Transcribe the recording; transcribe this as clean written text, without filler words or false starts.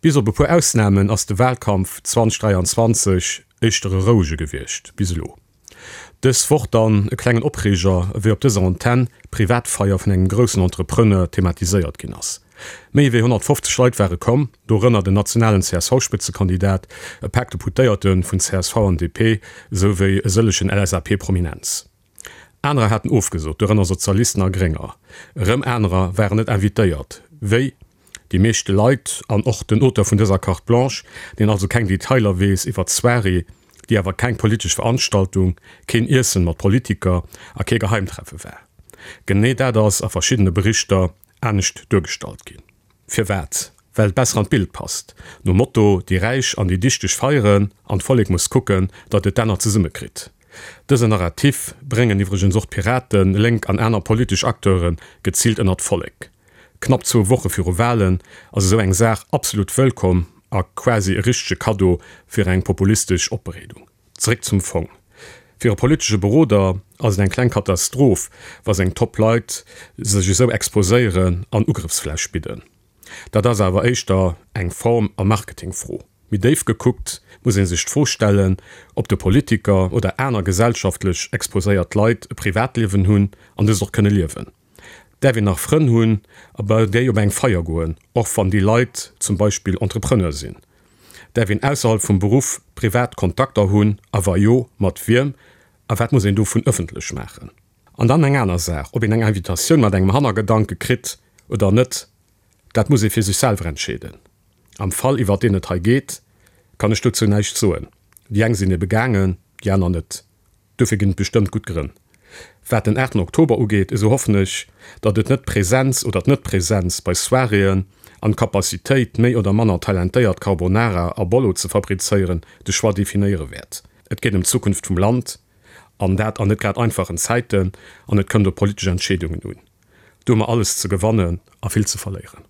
Bis op e puer Ausnamen ass de Wahlkampf 2023 éischter e rouege gewiescht, bis elo. Dës Woch dann e klengen Opreeger, ewéi op dëser Antenn d'Privatfeier vun engem groussen Entrepreneur thematiséiert ginn ass. Méi ewéi 150 Leit ware komm, dorënner den nationalen CSV-Spëtzekandidat, e Pak Deputéierte vun csv an DP, esou wéi e sëllegen LSAP-Prominenz. Anerer haten ofgesot, dorënner Sozialisten a Grénger. Erëm anerer waren net invitéiert, wéi déi meeschte Leit an och den Auteur vun dëser Carte Blanche, deen also keng Detailer weess iwwer d'Soirée, déi awer keng politesch Veranstaltung, keen Iessen mat Politiker a kee Geheimtreffe war. Genee dat ass a verschiddene Berichter anescht duergestallt ginn. Firwat? Well et besser an d'Bild passt. Nom Motto, déi Räich an déi Dichteg feieren an d'Vollek muss kucken, datt et d'Enner zesumme kritt. Dësen Narrativ bréngen iwwregens och d'Piraten, Lénk an aner politesch Acteure geziilt ënnert d'Vollek. Knapp zwou Woche viru Walen ass esou eng Saach absolut wëllkomm a quasi e richtege Kaddo fir eng populistesch Opbereedung. Zeréck zum Fong. Fir e politesche Beroder ass et eng kleng Katastroph, wa seng Top-Leit sech esou exposéieren an Ugrëffsfläch bidden. Dat ass awer éischter eng Form a Marketingfro. Méi déif gekuckt muss ee sech d'Fro stellen, ob de Politiker oder aner gesellschaftlech exposéiert Leit e Privatliewen hunn an dëst och kënne liewen. Däerf een nach Frënn hunn a bei déi op eng Feier goen, och wann déi Leit zum Beispill Entrepreneur sinn? Däerf een ausserhalb vum Beruff privat Kontakter hunn a wa jo, mat wiem a wat muss een dovun ëffentlech maachen? An dann eng aner Saach, ob een eng Invitatioun mat engem Hannergedanke kritt oder net, dat muss ee fir sech selwer entscheeden. Am Fall iwwert deen et hei geet, kann ech dozou näischt soen. Déi eng sinn ebe gaangen, déi aner net. Dofir ginn et bestëmmt gutt Grënn. Wat den 8 Oktober ugeet, esou hoffen ech, datt et net d'Präsenz oder d'Net-Präsenz bei Soiréeën an d'Capacitéit, méi oder manner talentéiert Carbonara a Bollo ze fabrizéieren, de Choix definéiere wäert. Et geet ëm d'Zukunft vum Land, an dat an net grad einfachen Zäiten, an et kënnt op politesch Entscheedungen un. Do hu mer alles ze gewannen a vill ze verléieren.